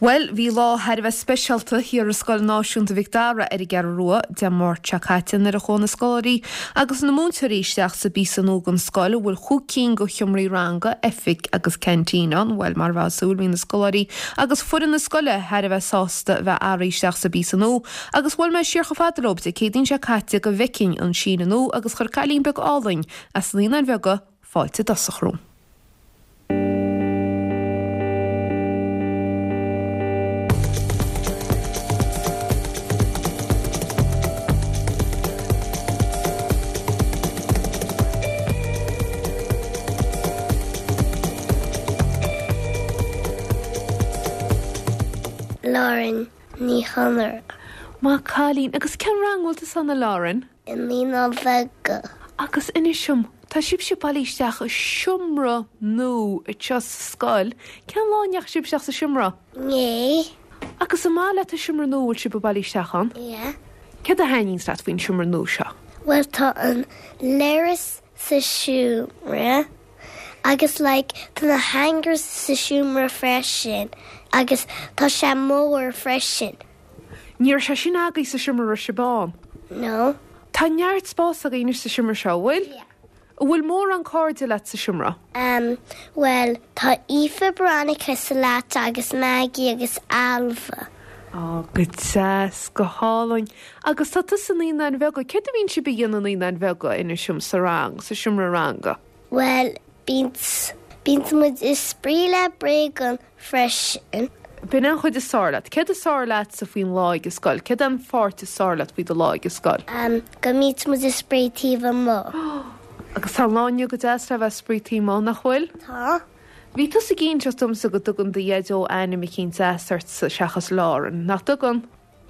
Bhuel, bhí lá thar a bheith speisialta thiar i Scoil Náisiúnta Mhic Dara ar an gCeathrú Rua Dé Máirt seo caite nuair a chuaigh na scoláirí agus na múinteoirí isteach sa bpíosa nua den scoil a bhfuil chúig cinn de sheomraí ranga, oifig agus ceaintín ann. Bhuel, mar a bheifeá ag súil, bhí na scoláirí agus foireann na scoile thar a bheith sásta a bheith athraithe isteach sa bpíosa nua agus bhuail mé siar chomh fada leo Dé Céadaoin seo caite go bhfeicfinn an síneadh nua agus chuir cailín beag álainn as na Naíonáin Bheaga fáilte i dtosach romham. Lauren Ní Chonaire. Maith cailín. Agus cén rang a bhfuil tusa ann a Lauren? I Naíonáin Bheaga. Agus inis dom, tá sibhse bailithe isteach i seomra nua anseo sa scoil, cén lá a ndeachaigh sibh isteach sa seomra? Inné. Agus an maith leat an seomra nua a bhfuil sibh bailithe isteach ann? Yeah. Céard a thaitníonns leat faoin seomra nua seo? Bhuel tá an leithreas sa seomra agus like tá na hangers sa seomra freisin agus tá sé mór freisin. Ní raibh sé sin agaibh sa seomra a raibh sibh ann? No. Tá neart spás agaibh anois sa seomra seo, an bhfuil? Yeah. An bhfuil mórán cairde leat sa seomra? Em, bhuel, tá Aoife, Veronica sa leat agus Maggie agus Ailbhe. Á, go deas, go hálainn. Agus tá tusa i Naíonáin Bheaga. Céard a bhíonn sibh a dhéanamh i Naíonáin Bheaga, inis dom, sa rang, sa seomra ranga? Bhuel, bíonn, bíonn muid ag spraoi le bréagáin freisin. B'in an chuid is fearr leat. Céard is fearr leatsa faoin lá ag an scoil? Céard é an pháirt is fearr leat faoi do lá ag an scoil? Em, go mbíonn muid ag spraoi taobh amuigh. Agus tá an lá inniu go deas le bheith ag spraoi taobh amuigh, nach bhfuil? Tá. Bhí tusa ag inseacht domsa go dtugann do Dhaideo ainm eicínt deas ortsa seachas Lauren, nach dtugann?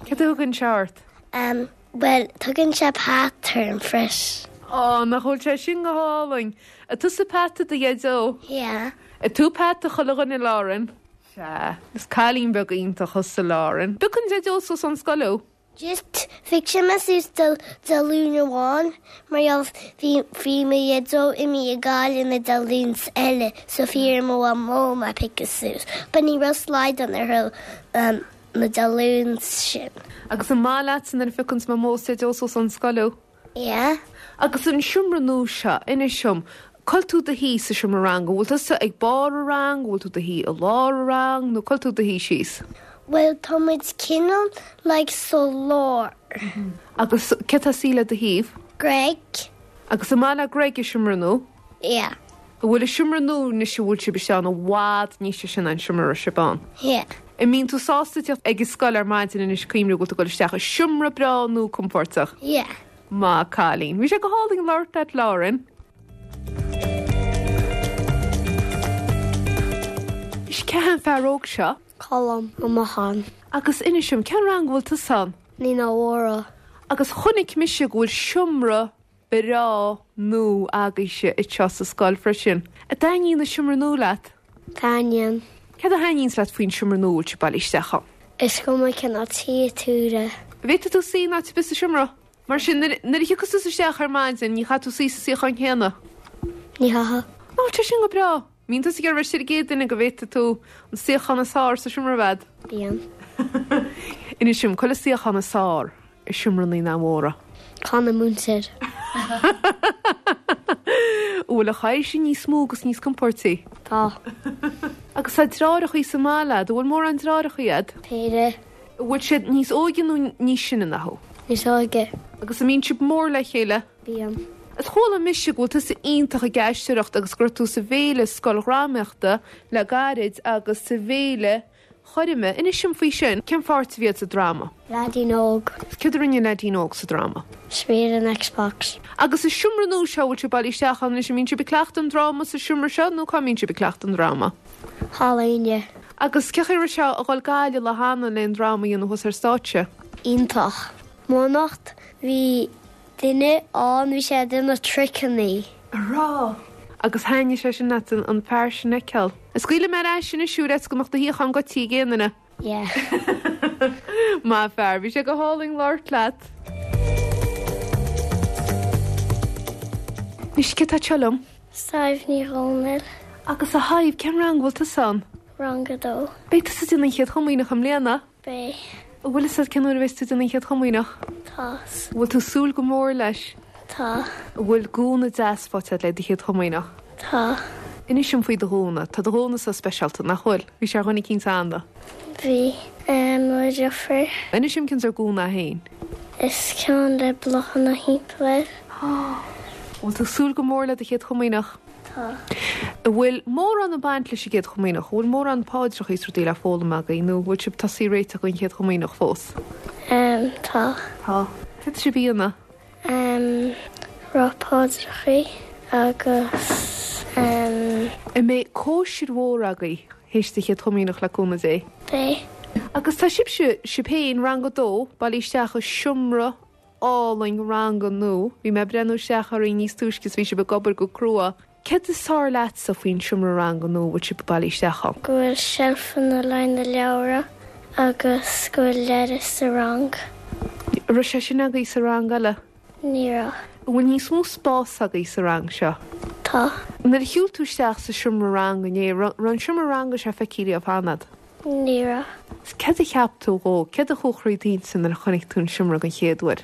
Céard a thugann sé ort? Em, bhuel, tugann sé Pat orm freisin. Á, nach bhfuil sé sin go hálainn! An tusa Pat do Dhaideo? Yeah. An tú Pat do chuile dhuine, Lauren? Sea. Is cailín beag iontach thusa, Lauren. Piocann Daideo suas ón scoil thú? Just, phioc sé mé suas Dé Luain amháin mar gheall bhí bhí mo Dhaideo imithe ag Gaillimh na Dé Luain eile so bhí ar mo mhamó mé a phiocadh suas but ní raibh slaghdán orthu na Dé Luain sin. Agus an maith leatsa nuair a phiocanns Mamó is Daideo suas ón scoil thú? Yeah. Agus an seomra nua seo, inis dom, cá bhfuil tú i do shuí sa seomra ranga, an bhfuil tusa ag barr an rang, an bhfuil tú i do shuí i lár an rang, nó cá bhfuil tú i do shuí síos? Bhuel, tá muid cineál like sa lár. Agus cé atá ag suí le do thaobh? Greg. Agus an maith le Greg an seomra nua? Yeah. An bhfuil an seomra nua anois a bhfuil sibh isteach ann i bhfad níos deise ná an seomra a raibh sibh ann? Yeah. An mbíonn tú sásta teacht ag an scoil ar maidin anois cuimhniú go bhfuil tú ag dul isteach i seomra breá nua compóirteach? Yeah. Maith cailín. Bhí sé go hálainn labhairt leat Lauren. Is cé hé an fear óg seo? Colm Ó Mocháin. Agus inis dom, cén rang a bhfuil tusa ann? Naíonáin Mhóra. Agus chonaic mise go bhfuil seomra breá nua agaibhse anseo sa scoil freisin. An dtaitníonn an seomra nua leat? Taitníonn. Céard a thaitníonns leat faoin seomra nua a bhfuil sibh bailithe isteach ann? Is cuma cén áit a shuífidh tú. An bhféadfaidh tú suí in áit ar bith sa seomra? Mar sin, nuair a thiocfas tusa isteach ar maidin, ní chaithfidh tú suí sa suíochán céanna? Ní chaithfidh. Nach bhfuil sé sin go breá? Mbíonn tusa ag iarraidh a bheith istigh ar an gcéad duine go bhféadfaidh tú an suíochán is fearr sa seomra a bheith agat? Bíonn. Inis dom, cá bhfuil an suíochán is fearr i seomra Naíonáin Mhóra? Ceann na múinteoir. An bhfuil an chathaoir sin níos mó agus níos compóirtí? Tá. Agus tá deartháireachaí sa mbaile agat, an bhfuil mórán deartháireachaí agat? Péire. An bhfuil siad níos óige nó níos sine ná thú? Níos óige. Agus an mbíonn sibh mór le chéile? Bíonn. Is chuala mise go bhfuil tusa iontach ag aisteoireacht agus go raibh tú sa bhféile scoildhrámaíochta le gairid agus sa bhféile choirme. Inis dom faoi sin. Cén pháirt a bhí agat sa dráma? Leaidín óg. Céard a rinne an leaidín óg sa dráma? Spraoi ar an Xbox. Agus sa seomra nua seo a bhfuil sibh bailithe isteach ann anois, an mbíonn sibh ag cleachtadh an dráma sa seomra seo nó cá mbíonn sibh ag cleachtadh an dráma? Halla Áine. Agus cén chaoi a raibh sé a dhul Gaillimh lá cheana le an dráma a dhéanamh thuas ar stáitse? Iontach. M'anocht bhí duine ann bhí sé ag déanamh triceannaí. An raibh? Agus thaitnigh sé sin leat an fear sin a fheiceáil? Scaoilfidh mé ar ais anois thú ar fhaitíos go mbeadh do shuíochán goidte ag aon duine. Yeah. Maith fear, bhí sé go hálainn labhairt leat. Anois, cé atá anseo liom? Sadhbh Ní Dhomhnaill. Agus a Shadhbh, cén rang a bhfuil tusa ann? Rang a dó. Beidh tusa ag déanamh an Chéad Chomaoineach i mbliana? Beidh. An bhfuil fhios agat cén uair a bheas tú ag déanamh an Chéad Chomaoineach? Tá. An bhfuil tú ag súil go mór leis? Tá. An bhfuil gúna deas faighte agat le do Chéad Chomaoineach? Tá. Inis dom faoi do ghúna. Tá do ghúna-sa speisialta, nach bhfuil? Bhí sé ar dhuine eicínt cheana. Bhí. Mo dheirfiúr. Inis dom cén sórt gúna é féin. Is ceann le bláthanna thimpeall air. An bhfuil tú ag súil go mór le do Chéad Chomaoineach? Tá. An bhfuil mórán ag baint leis an gCéad Chomaoineach? An bhfuil mórán paidreacha is rudaí le foghlaim agaibh nó an bhfuil sibh tosaithe ag réiteach don Chéad Chomaoineach fós? Em, tá. Tá. Céard tá sibh a dhéanamh? Em, rá paidreacha agus em. An mbeidh cóisir mhór agaibh théis do Chéad Chomaoineach le cúnamh Dé? Beidh. Agus tá sibhse, sibh féin, rang a dó, bailithe isteach i seomra álainn ranga nua. Bhí mé ag breathnú isteach oraibh níos túisce is bhí sibh ag obair go crua. Céard is fearr leatsa faoin seomra ranga nua a bhfuil sibh bailithe isteach ann? Go bhfuil seilfeanna le na leabhra agus go bhfuil leithreas sa rang. An raibh sé sin agaibh sa rang eile? Ní raibh. An bhfuil níos mó spás agaibh sa rang seo? Tá. Nuair a shiúil tú isteach sa seomra ranga inné, raibh an seomra ranga seo feicthe riamh cheana agat? Ní raibh. Céard a cheap tú dhó? Céard a chuaigh thrí d'intinn nuair a chonaic tú an seomra den chéad uair?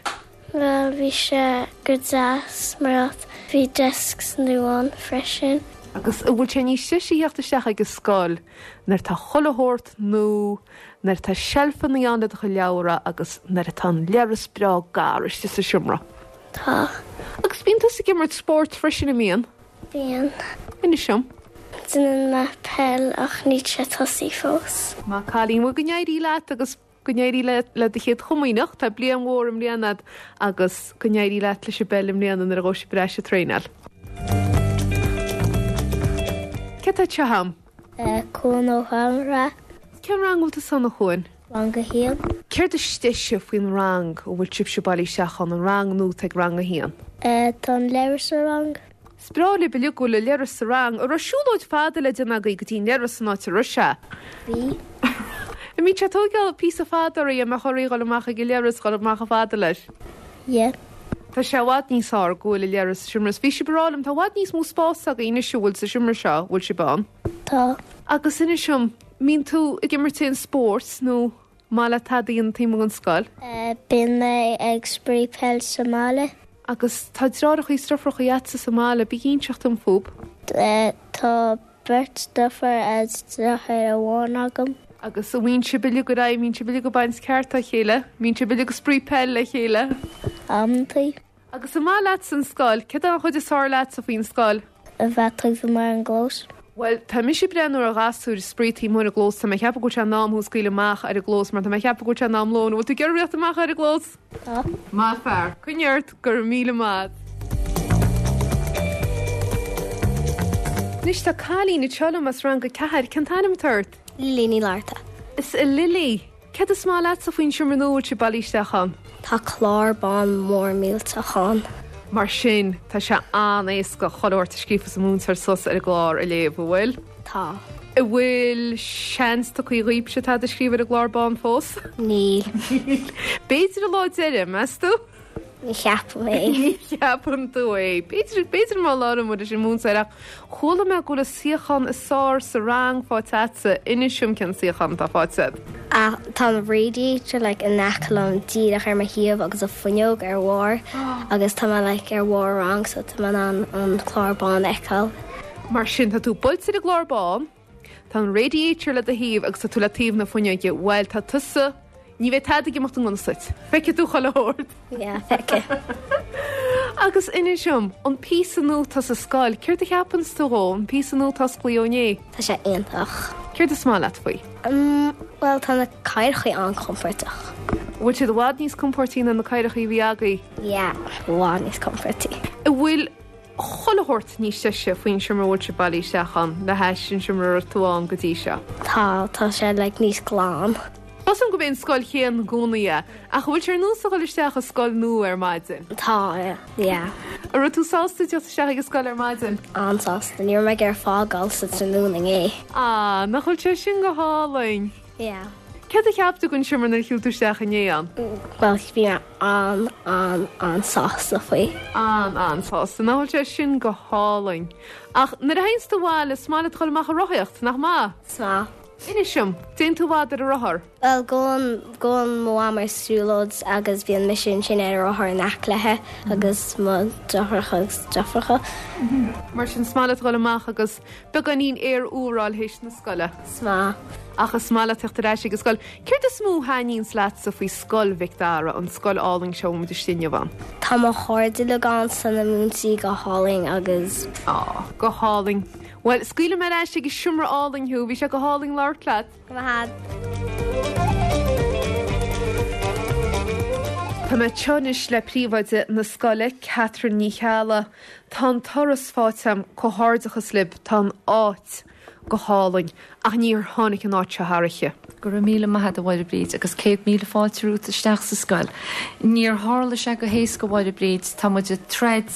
Bhuel, bhí sé go deas mar bhí desks nua ann freisin. Agus an bhfuil sé níos deise a theacht isteach ag an scoil nuair atá chuile shórt nua, nuair atá seilfeanna ann le do chuid leabhra agus nuair atá an leithreas breá gar istigh sa seomra? Tá. Agus bíonn tusa ag imirt spóirt freisin, an mbíonn? Bíonn. Inis dom. Déanann mé peil ach níl sé tosaithe fós. Maith an cailín. Bhuel go n-éirí leat agus go n-éirí leat le do chéad chomaoineach. Tá bliain mhór i mbliana agat agus go n-éirí leat leis an bpeil i mbliana nuair a ghabhfaidh sibh ar ais ag traenáil. Cé atá anseo agam? Cuan Ó hAmhra. Cén rang a bhfuil tusa ann a Chuain? Rang a haon. Céard is deise faoin rang a bhfuil sibhse bailithe isteach ann, an rang nua atá ag rang a haon? Tá an leithreas sa rang. Is breá libh uilig go bhfuil an leithreas sa rang. An raibh siúlóid fada le déanamh agaibh go dtí an leithreas an áit a raibh sé? Bhí. An mbíonn sé ag tóigeáil píosa fada oraibh, an mbeadh oraibh dhul amach ag an leithreas, dhul amach chomh fada leis? Yeah. Tá sé i bhfad níos fearr go bhfuil an leithreas sa seomra. Bhí sibh ag rá liom, tá i bhfad níos mó spáis agaibh anois a bhfuil sa seomra seo, a bhfuil sibh ann. Tá. Agus inis dom, mbíonn tú ag imirt aon spóirt nó maith leat tada a dhéanamh taobh amuigh den scoil? Bíonn mé ag spraoi peil sa mbaile. Agus tá deartháireacha is deirfiúracha agatsa sa mbaile, bí ag inseacht dom fúb. Tá beirt deirfiúr agus deartháir amháin agam. Agus an mbíonn sibh uilig ar aghaidh, mbíonn sibh uilig ag baint ceart dá chéile? Mbíonn sibh uilig ag spraoi peil le chéile? Amantaí. Agus an maith leatsa an scoil? Céard é an chuid is fearr leatsa faoin scoil? A bheith taobh amuigh ar an gclós. Bhuel, tá mise ag breathnú ar ghasúir ag spraoi taobh amuigh ar an gclós, tá mé ag ceapadh go bhfuil sé in am thú a scaoileadh amach ar an gclós mar tá mé ag ceapadh go bhfuil sé in am lóin. An bhfuil tú ag iarraidh rith amach ar an gclós? Tá. Maith fear. Coinnigh ort, go raibh míle maith. Anois tá cailín anseo liom as rang a ceathair. Cén t-ainm atá ort? Lily Ní Fhlatharta. Is a Lily, céard is maith leatsa faoin seomra nua a bhfuil sibh bailithe isteach ann? Tá clár bán mór millteach ann. Mar sin, tá sé an-éasca chuile shórt a scríofas an múinteoir suas ar an gclár a léamh, an bhfuil? Tá. An bhfuil seans tugtha dhaoibhse tada a scríobh ar an gclár bán fós? Níl. B'fhéidir an lá deiridh, meas tú? Ní cheapaim é. Ní cheapann tú é. B'fhéidir, b'fhéidir má labhrann muid leis an múinteoir ach chuala mé go bhfuil an suíochán is fearr sa rang faighte agatsa. Inis dom cén suíochán atá faighte agat. Ah, tá an radiator like in aice liom díreach ar mo thaobh agus an fuinneog ar bharr agus tá mé like ar bharr rang so tá mé in ann an clár bán a fheiceáil. Mar sin, tá tú buailte ar an gclár bán, tá an radiator le do thaobh agus tá tú le taobh na fuinneoige. Bhuel, tá tusa, ní bheidh tada ag imeacht i ngan fhios duit. Feicfidh tú chuile shórt. Yeah, feicfidh. Agus inis dom, an píosa nua atá sa scoil, céard a cheapanns tú dhó, an píosa nua atá osclaithe ó inné? Tá sé iontach. Céard is maith leat faoi? Um, bhuel, tá na cathaoireacha an-chompordach. Bhfuil siad i bhfad níos compóirtí ná na cathaoireacha a bhí agaibh? Yeah, i bhfad níos compóirtí. An bhfuil chuile shórt níos deise faoin seomra a bhfuil sibh bailithe isteach ann le hais an seomra a raibh tú ann go dtí seo? Tá, tá sé like níos glan. Tá 's agam gurb é an scoil chéanna i gcónaí é, ach an bhfuil sé ar nós a dhul isteach i scoil nua ar maidin? Tá, yeah. An raibh tú sásta teacht isteach ag an scoil ar maidin? An-sásta, ní raibh mé ag iarraidh fágáil sa tráthnóna inné. Ah, nach bhfuil sé sin go hálainn? Yeah. Céard a cheap tú den seomra nuair a shiúil tú isteach inné ann? Bhuel, bhí mé an, an, an-sásta faoi. An, an-sásta. Nach bhfuil sé sin go hálainn? Ach nuair a théanns tú abhaile, is maith leat dul amach ag rothaíocht, nach maith? Is maith. Inis dom, dtéann tú i bhfad ar an rothar? Bhuel, gabhann, gabhann mo mham ar siúlóid agus bíonn mise ansin ar an rothar in aice léi agus mo deartháireacha agus deirfiúracha. Mar sin, is maith leat a dhul amach agus beagáinín aer úr a fháil théis na scoile? Is maith. Ach is maith leat teacht ar ais ag an scoil. Céard is mó a thaitníonns leatsa faoi Scoil Mhic Dara, an scoil álainn seo a bhfuil muid istigh inniu ann? Tá mo chairde uilig ann 's tá na múinteoirí go hálainn agus. Á, go hálainn. Bhuel, scaoilfidh mé ar ais ag an seomra álainn thú. Bhí sé go hálainn labhairt leat. Go maith. Tá mé anseo anois le príomhoide na scoile, Catherine Ní Cheallaigh. Tá an turas faighte agam, comhghairdeachas libh, tá an áit go hálainn, ach níor tháinig an áit seo thar oíche. Go raibh míle maith agat a Mháire Bríd agus 100,000 fáilte romhat isteach sa scoil. Níor tharla sé go héasca a Mháire Bríd, tá muid ag troid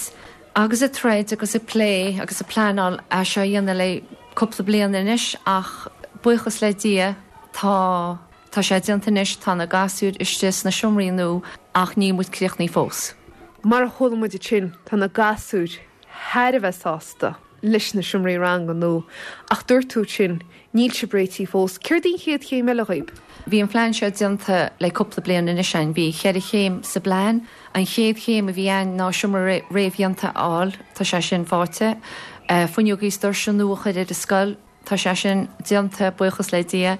agus ag troid agus ag plé agus ag pleanáil é seo a dhéanamh le cúpla bliain anois ach buíochas le Dia tá tá sé déanta anois, tá na gasúir istigh sna seomraí nua ach níl muid críochnaithe fós. Mar a chuala muid ansin tá na gasúir thar a bheith sásta leis na seomraí ranga nua ach dúirt tú ansin níl sibh réitithe fós. Céard í an chéad chéim eile dhaoib? Bhí an phlean seo déanta le cúpla bliain anois againn. Bhí cheithre chéim sa bplean. An chéad chéim a bhí ann ná seomra réamhdhéanta a fháil, tá sé sin faighte. Fuinneogaí is doirse nua a chur ar an scoil, tá sé sin déanta, buíochas le Dia.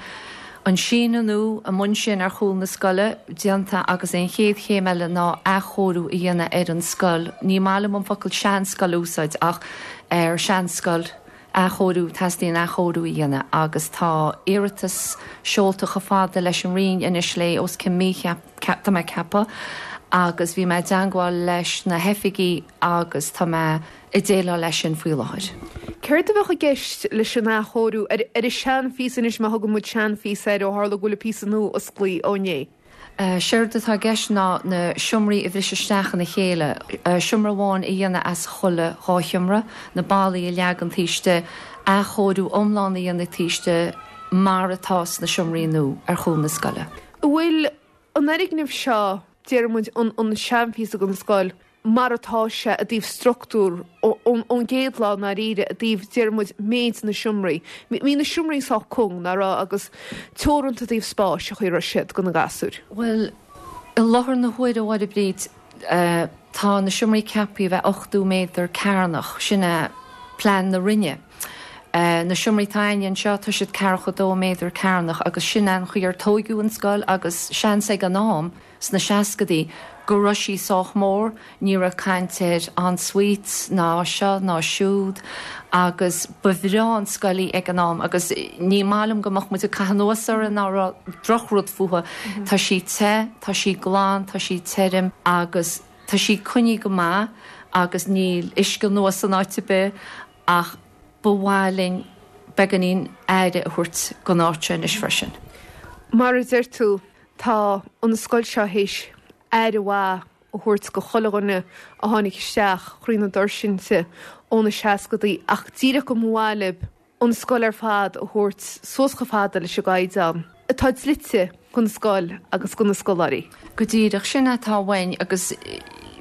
An síneadh nua amuigh ansin ar chúl na scoile, déanta agus an chéad chéim eile ná athchóiriú a dhéanamh ar an scoil. Ní maith liom an focal seanscoil a úsáid ach ar seanscoil, athchóiriú, teastaíonn athchóiriú a dhéanamh agus tá iarratas seolta chomh fada leis an Roinn anois le os cionn mí, tá mé ag ceapadh, agus bhí mé i dteangmháil leis na hoifigigh agus tá mé ag déileáil leis sin faoi láthair. Céard a bheadh i gceist leis an athchóiriú ar an seanphíosa anois, má thugann muid seanphíosa air ó tharla go bhfuil an píosa nua osclaithe ó inné? Séard atá i gceist ná na seomraí a bhriseadh isteach ina chéile, seomra amháin a dhéanamh as chuile dhá sheomra, na ballaí a leagan taobh istigh, athchóiriú iomlán a dhéanamh taobh istigh mar atá sna seomraí nua ar chúl na scoile. An bhfuil an fhoirgneamh seo, déarfaidh muid, an seanphíosa den scoil, mar atá sé i dtaobh struchtúr ón gcéad lá i ndáiríre, i dtaobh, déarfaidh muid, méid na seomraí. Bhí na seomraí sách cúng, nach raibh, agus teoranta i dtaobh spáis, an chaoi a raibh siad do na gasúir. Bhuel, i láthair na huaire, a Mháire Bríd, tá na seomraí ceaptha a bheith 80 méadar cearnach, sin é plean na Roinne. Na seomraí atá againne anseo, tá siad ceathracha dó méadar cearnach agus sin é an chaoi ar tóigeadh an scoil agus seans ag an am, Sna seascadaí, go raibh sí sách mór, ní raibh caint ar en-suites ná seo ná siúd agus ba bhreá an scoil í ag an am agus ní maith liom go mbeadh muid ag caitheamh anuas uirthi ná rá drochrud fúithi. Tá sí te, tá sí glan, tá sí tirim agus tá sí coinnithe go maith agus níl uisce anuas in áit ar bith ach ba mhaith linn beagáinín aire a thabhairt don áit seo anois freisin. Mar a deir tú, Tá an scoil seo théis aire mhaith a thabhairt go chuile dhuine a tháinig isteach thrí na doirse inti ó na seascadaí ach díreach go mba mhaith libh an scoil ar fad a thabhairt suas chomh fada leis an gcaighdeán atá dlite don scoil agus do na scoláirí. Go díreach, sin atá uainn agus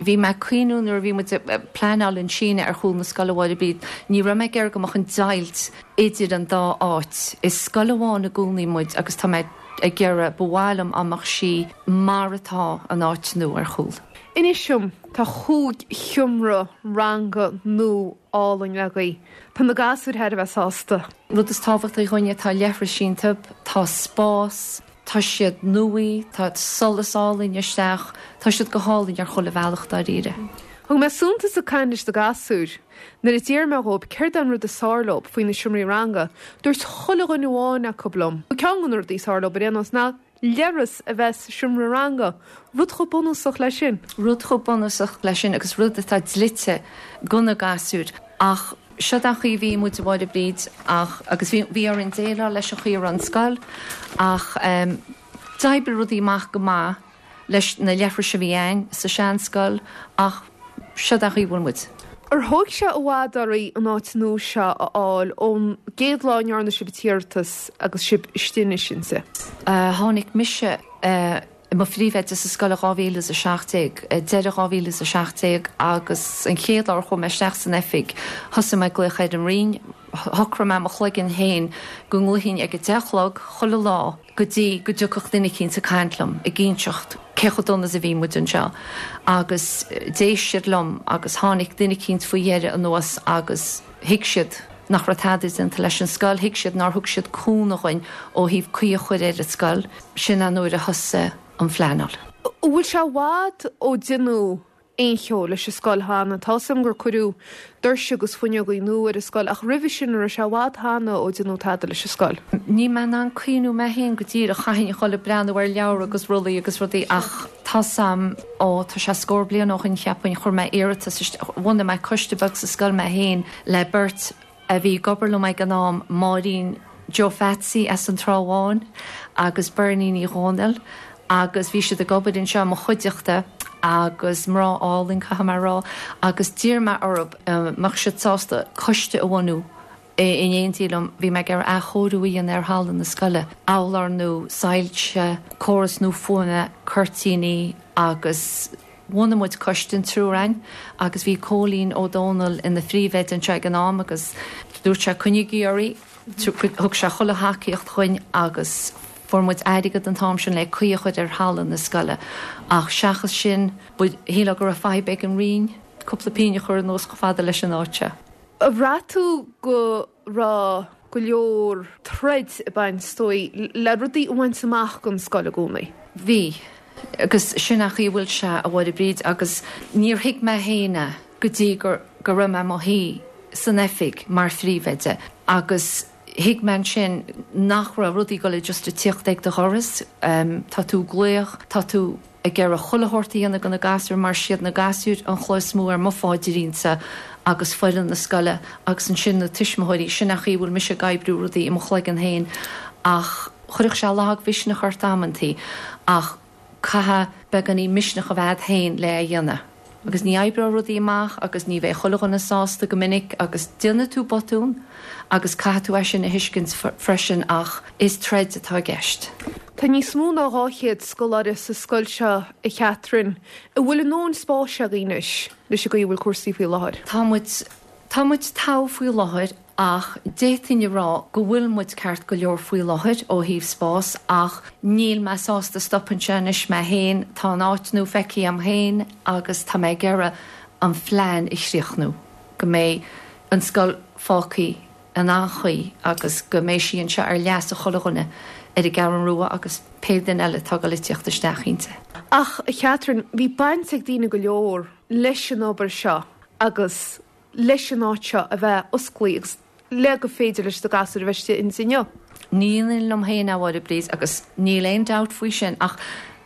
bhí mé ag cuimhniú nuair a bhí muid ag pleanáil an síneadh ar chúl na scoile a Mháire Bríd, ní raibh mé ag iarraidh go mbeadh an deighilt idir an dá áit. Is scoil amháin i gcónaí muid agus tá mé ag iarraidh, ba mhaith liom dá mbeadh sí mar atá an áit nua ar chúl. Inis dom, tá chúig sheomra ranga nua álainn agaibh. Tá na gasúir thar a bheith sásta. Rud is tábhachtaí dhúinne, tá leithris iontu, tá spás, tá siad nua, tá solas álainn isteach, tá siad go hálainn ar chuile bhealach dáiríre. Thug mé suntas ag caint leis na gasúir. Nuair a d'iarr mé dhóibh céard é an rud is fearr leob faoi na seomraí ranga, dúirt chuile dhuine amháin acu liom, ceann de na rudaí is fearr leob ar aon nós, ná leithreas a bheith sa seomra ranga. Rud chomh bunúsach leis sin. Rud chomh bunúsach leis sin agus rud atá dlite go na gasúir. Ach siod an chaoi a bhí muid, a Mháire Bríd, ach, agus bhí, bhí orainn déileáil leis an chaoi a raibh an scoil ach d'oibrigh rudaí amach go maith. leis na leithris a bhí a'inn sa seanscoil ach siod an chaoi a bhfuil muid. Ar thóig sé i bhfad oraibh an áit nua seo a fháil ón gcéad lá a ndearna sibh an t-iarratas agus sibh istigh anois inti? Tháinig mise i mo phríomhoide sa scoil i 2017, deireadh 2017 agus an chéad lá ar chuaigh mé isteach san oifig thosaigh mé ag glaoch ar an Roinn. Shocraigh mé i mo chloigeann féin go nglaofainn ag a deich a chlog chuile lá go dtí go dtiocfadh duine eicínt ag caint liom ag inseacht cé chomh dona is a bhí muid anseo agus d'éist siad liom agus tháinig duine eicínt faoi dheireadh anuas agus thuig siad nach raibh tada déanta leis an scoil, thuig siad nár thug siad cúnamh dhuinn ó thaobh caoi a chur ar an scoil. Sin an uair a thosaigh an phleanáil. An bhfuil sé i bhfad ó deineadh aon cheo leis an scoil cheana. Tá 'fhios a'm gur cuireadh doirse agus fuinneogaí nua ar an scoil ach roimhe sin an raibh sé i bhfad cheana ó deineadh tada leis an scoil. Níl mé in ann cuimhniú mé féin go díreach, chaithfinn a dhul ag breathnú ar leabhra agus rollaí agus rudaí ach tá 'fhios a'm, ó tá sé scór bliain ó shin cheapfainn, chuir mé iarratas isteach, bhunaigh mé coiste beag sa scoil mé féin le beirt a bhí ag obair liom ag an am, Máirín Joe Pheatsaí as an Trá Bháin agus Bernie Ní Dhomhnaill agus bhí siad ag obair anseo i mo chuideachta agus mná álainn, caithfidh mé a rá, agus d'iarr mé orthu an mbeadh siad sásta coiste a bhunú in éindí liom. Bhí mé ag iarraidh athchóiriú a dhéanamh ar halla na scoile, urláir nua, soilse, córas nua fuaime, cuirtíní agus. Bhunaigh muid coiste, an triúr againn, agus bhí Cóilín Ó Dónaill ina phríomhoide anseo ag an am agus dúirt sé coinnígí oraibh, thug sé chuile thacaíocht dhuinn agus fuair muid airgead an t-am sin le caoi a chur ar halla na scoile ach seachas sin, shílfeá go raibh fadhb ag an Roinn cúpla pingin a chur anuas chomh fada leis an áit seo. Ar bhraith tú go raibh go leor troid ag baint, is dóigh, le rudaí a bhaint amach don scoil i gcónaí? Bhí. Agus sin an chaoi a bhfuil sé, a Mháire Bríd, agus níor thuig mé féin é go dtí go go raibh mé i mo shuí san oifig mar phríomhoide agus thuig mé ansin nach raibh rudaí ag dul just ag tíocht ag do dhoras. Tá tú ag glaoch, tá tú ag iarraidh chuile shórt a dhéanamh do na gasúir mar siad na gasúir an chloch is mó ar mo pháidrín-sa agus foireann na scoile agus ansin na tuismitheoirí. Sin an chaoi a bhfuil mise ag oibriú rudaí i mo chloigeann féin ach chuirfeadh sé lagmhisneach ort amantaí ach caithfidh beagáinín misneach a bheith a'd féin le é a dhéanamh. Agus ní oibreoidh rudaí amach agus ní bheidh chuile dhuine sásta go minic agus déanfaidh tú botún agus caithfidh tú é sin a thuiscint freisin ach is troid atá i gceist. Tá níos mó ná 200 scoláire sa scoil seo, a Chatherine. An bhfuil a ndóthain spáis agaibh anois leis an gcaoi a bhfuil cúrsaí faoi láthair? Tá muid, tá muid togha faoi láthair Ach d'fhéadfainn a rá go bhfuil muid ceart go leor faoi láthair ó thaobh spás ach níl mé sásta stop anseo anois mé féin, tá an áit nua feicthe a'm féin agus tá mé ag iarraidh an phlean a chríochnú, go mbeidh an scoil fágtha in an-chaoi agus go mbeidh sí anseo ar leas chuile dhuine ar an gCeathrú Rua agus pé duine eile atá ag dul ag tíocht isteach inti. Ach, a Chatherine, bhí baint ag daoine go leor leis an obair seo agus leis an áit seo a bheith osclaí agus le go féidir leis na gasúir a bheith istigh inti inniu. Ní dhéanfainn liom féin é, a Mháire Bríd, agus níl aon dabht faoi sin ach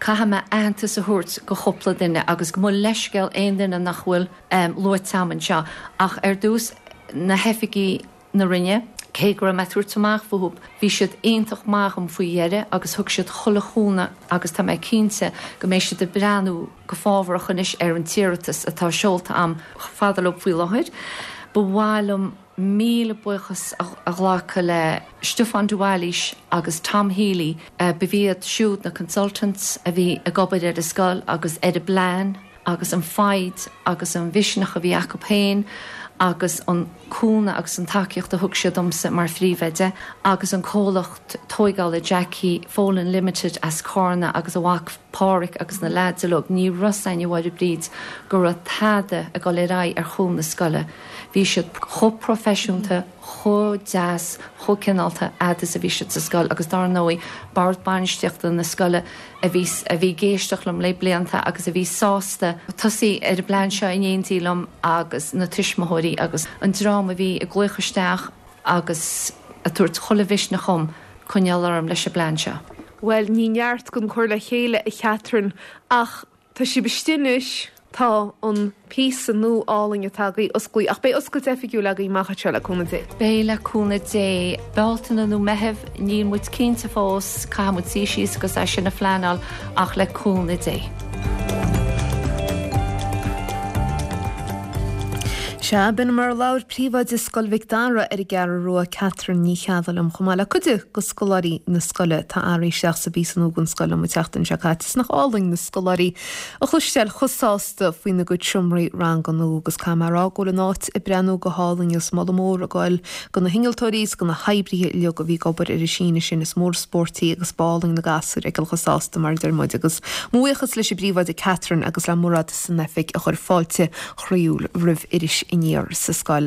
caithfidh mé aitheantas a thabhairt go chúpla duine agus gabh mo leithscéal aon duine nach bhfuil luaite a'm anseo ach ar dtús na hoifigigh na Roinne. Cé go raibh mé ag tabhairt amach fúthu, bhí siad iontach maith dhom faoi dheireadh agus thug siad chuile chúnamh agus tá mé cinnte go mbeidh siad ag breathnú go fábharach anois ar an t-iarratas atá seolta a'm chomh fada leo faoi láthair. Ba mhaith liom míle buíochas a ghlacadh le Stiofán de Bhailís agus Tom Healy, ba iad siúd na consultants a bhí ag obair ar an scoil agus ar an bplean. agus an foighid agus an mhisneach a bhí acu féin agus an cúnamh agus an tacaíocht a thug siad domsa mar phríomhoide agus an comhlacht tóigeála Jackie Folan Limited as Cárna agus a mhac Páraic agus na leaids uilig. Ní raibh 's a'inn a Mháire Bríd go raibh tada ag dul ar aghaidh ar chúl na scoile. Bhí siad chomh proifisiúnta, chomh deas, chomh cineálta fhad is a bhí siad sa scoil agus dár ndóigh bord bainistíochta na scoile a bhí a bhí ag éisteacht liom le blianta agus a bhí sásta tosaí ar an bplean seo in éindí liom agus na tuismitheoirí agus an dream a bhí ag glaoch isteach agus ag tabhairt chuile mhisneach dhom coinneáil orm leis an bplean seo. Bhuel, ní neart gan cur le chéile, a Chatherine, ach Tá sibh istigh anois, tá an píosa nua álainn atá agaibh osclaí, ach beidh oscailt oifigiúil agaibh amach anseo le cúnamh Dé. Beidh le cúnamh Dé. Bealtaine nó Meitheamh, níl muid cinnte fós, caithfidh muid suí síos agus é sin a phleanáil ach le cúnamh Dé. Sea, b'in mar a labhair Príomhoide Scoil Mhic Dara ar an gCeathrú Rua, Catherine Ní Cheallaigh liom, chomh maith le cuid de scoláirí na scoile atá athraithe isteach sa bpíosa nua den scoil liom an tseachtain seo caite. Is nach álainn na scoláirí a chloisteáil chomh sásta faoina gcuid seomraí ranga nua agus caithfidh mé a rá go bhfuil an áit ag breathnú go hálainn agus moladh mór ag goil go na hinnealtóirí is go na hoibrithe uilig a bhí ag obair ar an síneadh sin. Is mór an spórt í agus b'álainn na gasúir a fheiceáil chomh sásta mar a deir muid agus mo bhuíochas leis an bPríomhoide Catherine agus le Mairéad san oifig a chuir fáilte chroíúil roimh Iris Aniar sa scoil.